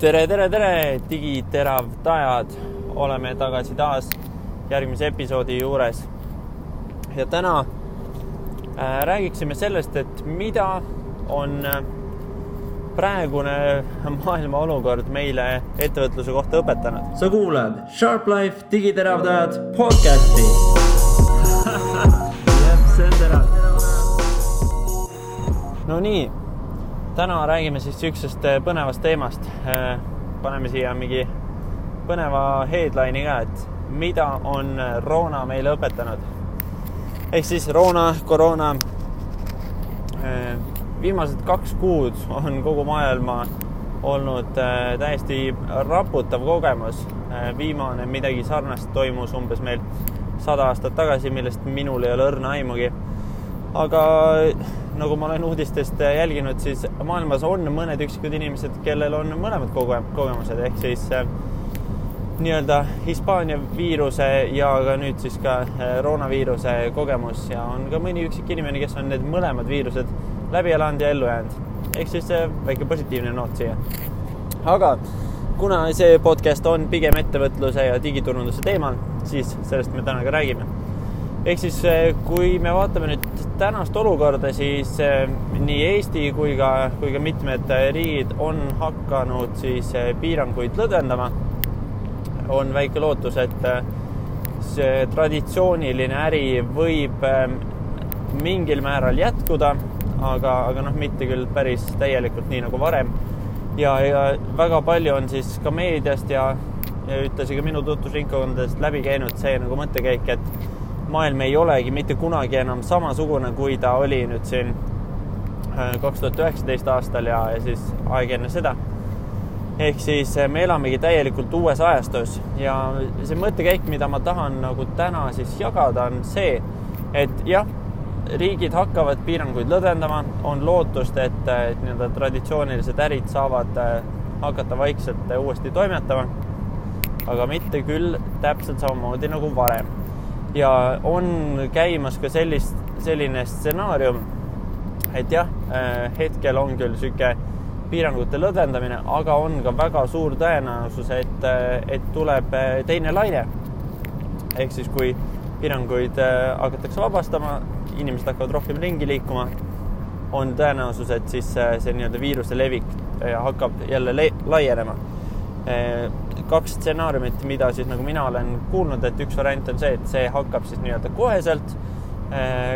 Tere, digiteravdajad! Oleme tagasi taas järgmise episoodi juures. Ja täna räägiksime sellest, et mida on praegune maailma olukord meile ettevõtluse kohta õpetanud. Sa kuulad Sharp Life digiteravdajad podcasti. See on terav. No nii, täna räägime siis üksest põnevast teemast. Paneme siia mingi põneva headline'i ka, et mida on Rona meile õpetanud. Ehk siis koroona. Viimased 2 kuud on kogu maailma olnud täiesti raputav kogemus. Viimane midagi sarnast toimus umbes meil 100 aastat tagasi, millest minul ei ole õrna aimugi. Aga nagu ma olen uudistest jälginud, siis maailmas on mõned üksikud inimesed, kellel on mõlemad kogemused. Ehk siis nii-öelda Hispaania viiruse ja ka nüüd siis ka Roonaviiruse kogemus. Ja on ka mõni üksik inimene, kes on need mõlemad viirused läbi elanud ja ellu jäänud. Ehk siis väike positiivne noot siia. Aga kuna see podcast on pigem ettevõtluse ja digiturunduse teemal, siis sellest me täna ka räägime. Ehk siis kui me vaatame nüüd tänast olukorda, siis nii Eesti kui ka mitmed riigid on hakanud siis piiranguid lõdvendama. On väike lootus, et see traditsiooniline äri võib mingil määral jätkuda, aga mitte küll päris täielikult nii nagu varem. Ja väga palju on siis ka meediast ja ütlesin ka minu tutvusringkondadest läbi käinud see nagu mõttekäik, et maailm ei olegi mitte kunagi enam samasugune, kui ta oli nüüd siin 2019 aastal ja siis aeg enne seda. Ehk siis me elamegi täielikult uues ajastus ja see mõttekäik, mida ma tahan nagu täna siis jagada, on see, et jah, riigid hakkavad piiranguid lõdvendama, on lootust, et nii-öelda traditsioonilised ärid saavad hakata vaikselt uuesti toimetama, aga mitte küll täpselt samamoodi nagu varem. Ja on käimas ka selline stsenaarium, et jah, hetkel on küll süke piirangute lõdvendamine, aga on ka väga suur tõenäosus, et tuleb teine laine. Ehk siis kui piiranguid hakatakse vabastama, inimesed hakkavad rohkem ringi liikuma, on tõenäosus, et siis see nii-öelda viiruse levik hakkab jälle laienema. 2 stsenaariumit, mida siis nagu mina olen kuulnud, et üks variant on see, et see hakkab siis nii-öelda koheselt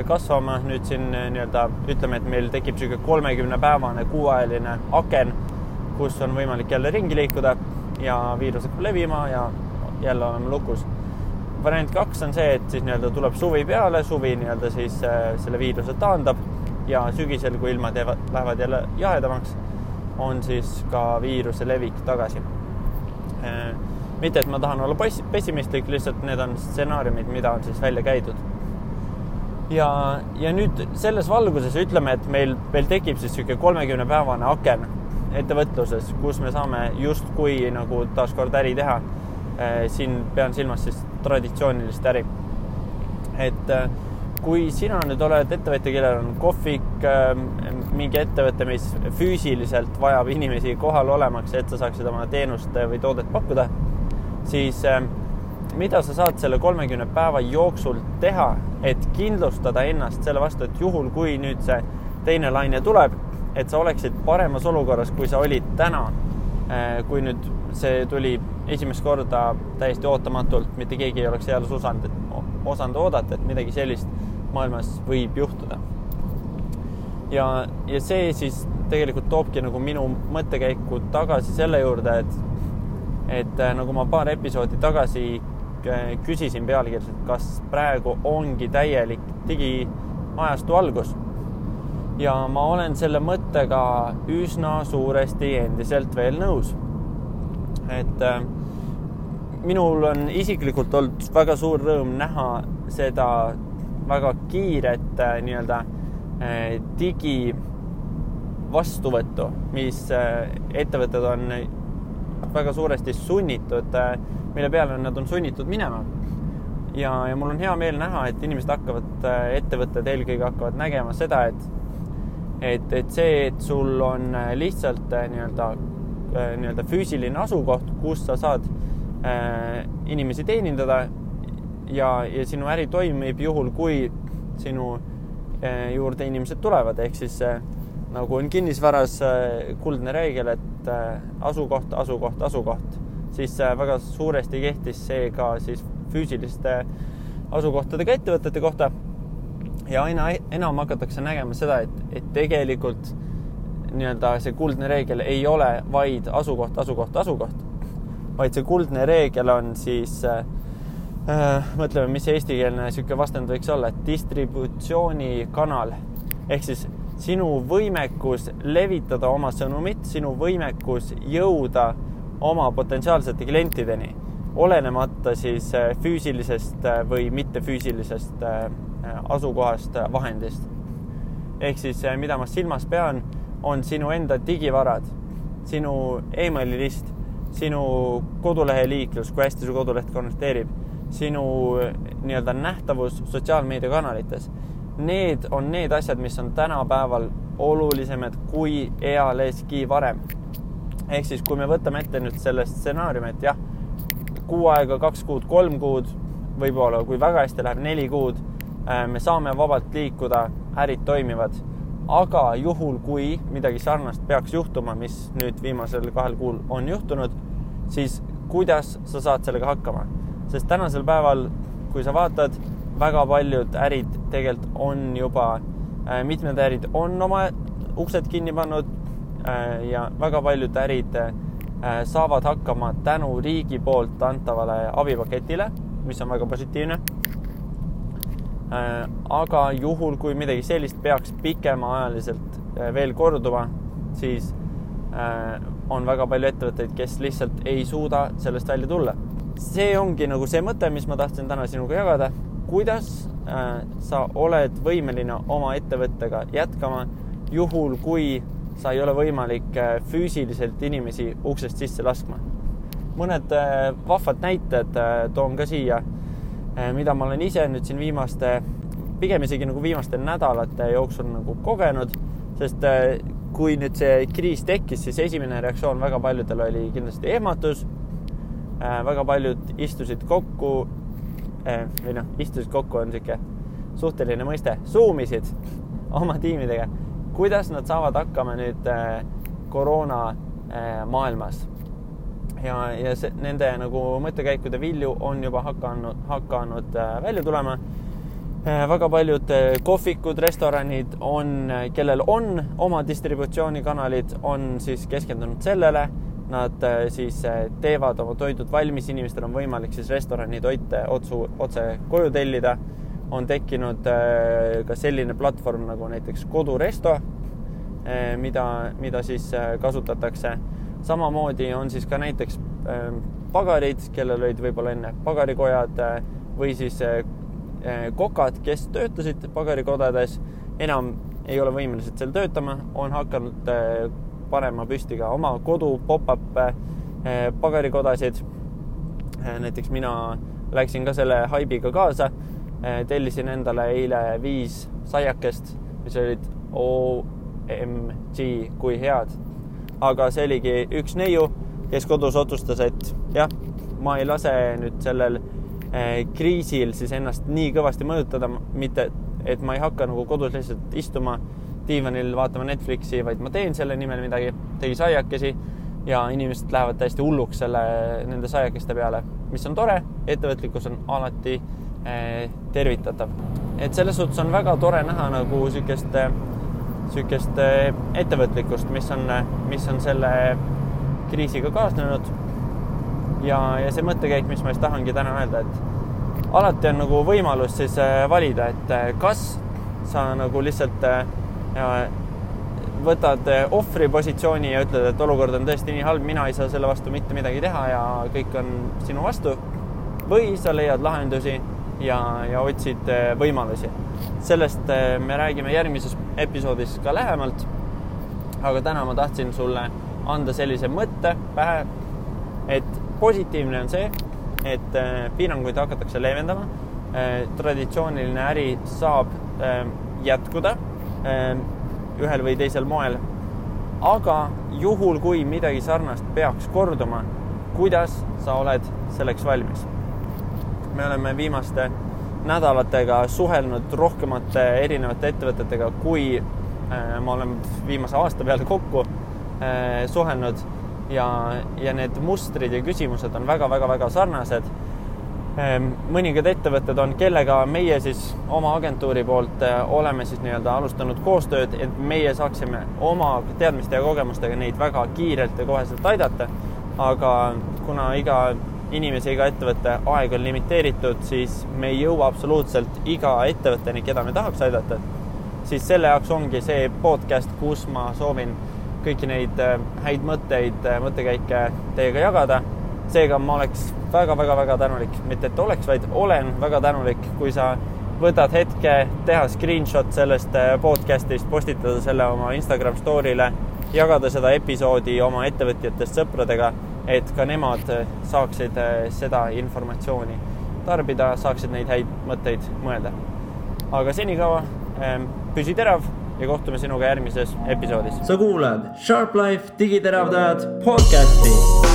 kasvama. Nüüd siin nii-öelda ütleme, et meil tekib süge 30-päevane kuuajaline aken, kus on võimalik jälle ringi liikuda ja viirus hakkab levima ja jälle oleme lukus. Variant 2 on see, et siis nii-öelda tuleb suvi peale, suvi nii-öelda siis selle viiruse taandab ja sügisel, kui ilmad lähevad jälle jahedamaks, on siis ka viiruse levik tagasi. Mitte, et ma tahan olla pessimistlik, lihtsalt need on stsenaariumid, mida on siis välja käidud. Ja nüüd selles valguses ütleme, et meil tekib siis 30-päevane aken ettevõtluses, kus me saame justkui nagu taaskord äri teha. Siin pean silmas siis traditsioonilist äri. Et kui sina nüüd oled ettevõtja, kellel on kohvik, mingi ettevõte, mis füüsiliselt vajab inimesi kohal olemaks, et sa saaksid oma teenust või toodet pakkuda, siis mida sa saad selle 30 päeva jooksul teha, et kindlustada ennast selle vastu, et juhul, kui nüüd see teine laine tuleb, et sa oleksid paremas olukorras, kui sa olid täna, kui nüüd see tuli esimest korda täiesti ootamatult, mitte keegi ei oleks jälle osanud oodata, et midagi sellist maailmas võib juhtuda. Ja see siis tegelikult toobki nagu minu mõttekäiku tagasi selle juurde, et nagu ma paar episoodi tagasi küsisin pealkirjalt, kas praegu ongi täielik digiajastu algus. Ja ma olen selle mõttega üsna suuresti endiselt veel nõus. Et minul on isiklikult olnud väga suur rõõm näha seda väga kiiret nii-öelda digi vastuvõttu, mis ettevõtted on väga suuresti sunnitud, mille peale nad on sunnitud minema. Ja mul on hea meel näha, et inimesed ettevõtted eelkõige hakkavad nägema seda, et see, et sul on lihtsalt nii-öelda nii-öelda füüsiline asukoht, kus sa saad inimesi teenindada ja sinu äri toimib juhul, kui sinu juurde inimesed tulevad, ehk siis nagu on kinnisvaras kuldne reegel, et asukoht, siis väga suuresti kehtis see ka siis füüsiliste asukohtadega ettevõtete kohta ja aina enam hakatakse nägema seda, et tegelikult nii-öelda see kuldne reegel ei ole vaid asukoht, vaid see kuldne reegel on siis mõtleme, mis eestikeelne siuke vastand võiks olla, et distributsioonikanal ehk siis sinu võimekus levitada oma sõnumit, sinu võimekus jõuda oma potentsiaalsete klientideni, olenemata siis füüsilisest või mittefüüsilisest asukohast vahendist. Ehk siis, mida ma silmas pean, on sinu enda digivarad, sinu emaililist, sinu kodulehe liiklus, kui hästi su koduleht konverteerib, sinu nii-öelda nähtavus sotsiaalmeediakanalites. Need on need asjad, mis on tänapäeval olulisemad kui ealeski varem. Ehk siis, kui me võtame ette nüüd selle stsenaariumi, et jah, 6 aega, 2 kuud, 3 kuud, võib-olla kui väga hästi läheb 4 kuud, me saame vabalt liikuda, ärid toimivad. Aga juhul, kui midagi sarnast peaks juhtuma, mis nüüd viimasel 2 kuul on juhtunud, siis kuidas sa saad sellega hakkama? Sest tänasel päeval, kui sa vaatad, väga paljud ärid tegelikult on juba, mitmed ärid on oma uksed kinni pannud ja väga paljud ärid saavad hakkama tänu riigi poolt antavale abipaketile, mis on väga positiivne. Aga juhul, kui midagi sellist peaks pikemaajaliselt veel korduma, siis on väga palju ettevõtteid, kes lihtsalt ei suuda sellest välja tulla. See ongi nagu see mõte, mis ma tahtsin täna sinuga jagada. Kuidas sa oled võimeline oma ettevõttega jätkama juhul, kui sa ei ole võimalik füüsiliselt inimesi uksest sisse laskma. Mõned vahvad näited toon ka siia, mida ma olen ise nüüd siin pigem isegi nagu viimaste nädalate jooksul nagu kogenud, sest kui nüüd see kriis tekkis, siis esimene reaktsioon väga paljudel oli kindlasti ehmatus. Väga paljud istusid kokku on siuke suhteline mõiste, zoomisid oma tiimidega. Kuidas nad saavad hakkama nüüd koroona maailmas? Ja nende nagu mõttekäikude vilju on juba hakanud välja tulema. Väga paljud kohvikud, restoranid kellel on oma distributsioonikanalid, on siis keskendunud sellele. Nad siis teevad oma toidud valmis, inimestel on võimalik siis restorani toite otse koju tellida. On tekkinud ka selline platvorm nagu näiteks Koduresto, mida siis kasutatakse. Samamoodi on siis ka näiteks pagarid, kellel olid võib-olla enne pagarikojad või siis kokad, kes töötasid pagarikodades, enam ei ole võimelised seal töötama, on hakanud panema püsti ka oma kodu pop-up pagarikodasid. Näiteks mina läksin ka selle haibiga kaasa, tellisin endale eile 5 saiakest, mis olid OMG, kui head. Aga see oligi üks neiu, kes kodus otsustas, et jah, ma ei lase nüüd sellel kriisil siis ennast nii kõvasti mõjutada, mitte et ma ei hakka nagu kodus lihtsalt istuma diivanil vaatama Netflixi, vaid ma teen selle nimel midagi, tegi saiakesi ja inimesed lähevad täiesti hulluks nende saiakeste peale, mis on tore, ettevõtlikkus on alati tervitatav. Et selles suhtes on väga tore näha nagu sükest ettevõtlikkust, mis on selle kriisiga kaasnenud ja see mõttekäik, mis ma just tahangi täna öelda, et alati on nagu võimalus siis valida, et kas sa nagu lihtsalt võtad ohvri positsiooni ja ütled, et olukord on tõesti nii halb, mina ei saa selle vastu mitte midagi teha ja kõik on sinu vastu, või sa leiad lahendusi ja otsid võimalusi. Sellest me räägime järgmises episoodis ka lähemalt, aga täna ma tahtsin sulle anda sellise mõtte pähe, et positiivne on see, et piiranguid hakatakse leevendama, traditsiooniline äri saab jätkuda ühel või teisel moel aga juhul, kui midagi sarnast peaks korduma, kuidas sa oled selleks valmis? Me oleme viimaste nädalatega suhelnud rohkemate erinevate ettevõtetega, kui ma olen viimase aasta peale kokku suhelnud ja need mustrid ja küsimused on väga sarnased. Mõningad ettevõtted on, kellega meie siis oma agentuuri poolt oleme siis nii-öelda alustanud koostööd, et meie saaksime oma teadmiste ja kogemustega neid väga kiirelt ja koheselt aidata. Aga kuna iga inimese, iga ettevõtte aeg on limiteeritud, siis me ei jõua absoluutselt iga ettevõtteni, keda me tahaks aidata. Siis selle jaoks ongi see podcast, kus ma soovin kõiki neid häid mõttekäike teiega jagada. Seega ma oleks väga tänulik, mitte et oleks, vaid olen väga tänulik, kui sa võtad hetke, teha screenshot sellest podcastist, postitada selle oma Instagram story'le, jagada seda episoodi oma ettevõtjatest sõpradega, et ka nemad saaksid seda informatsiooni tarbida, saaksid neid häid mõtteid mõelda. Aga senikaua püsi terav ja kohtume sinuga järgmises episoodis. Sa kuulad Sharp Life digiteravdajad podcasti.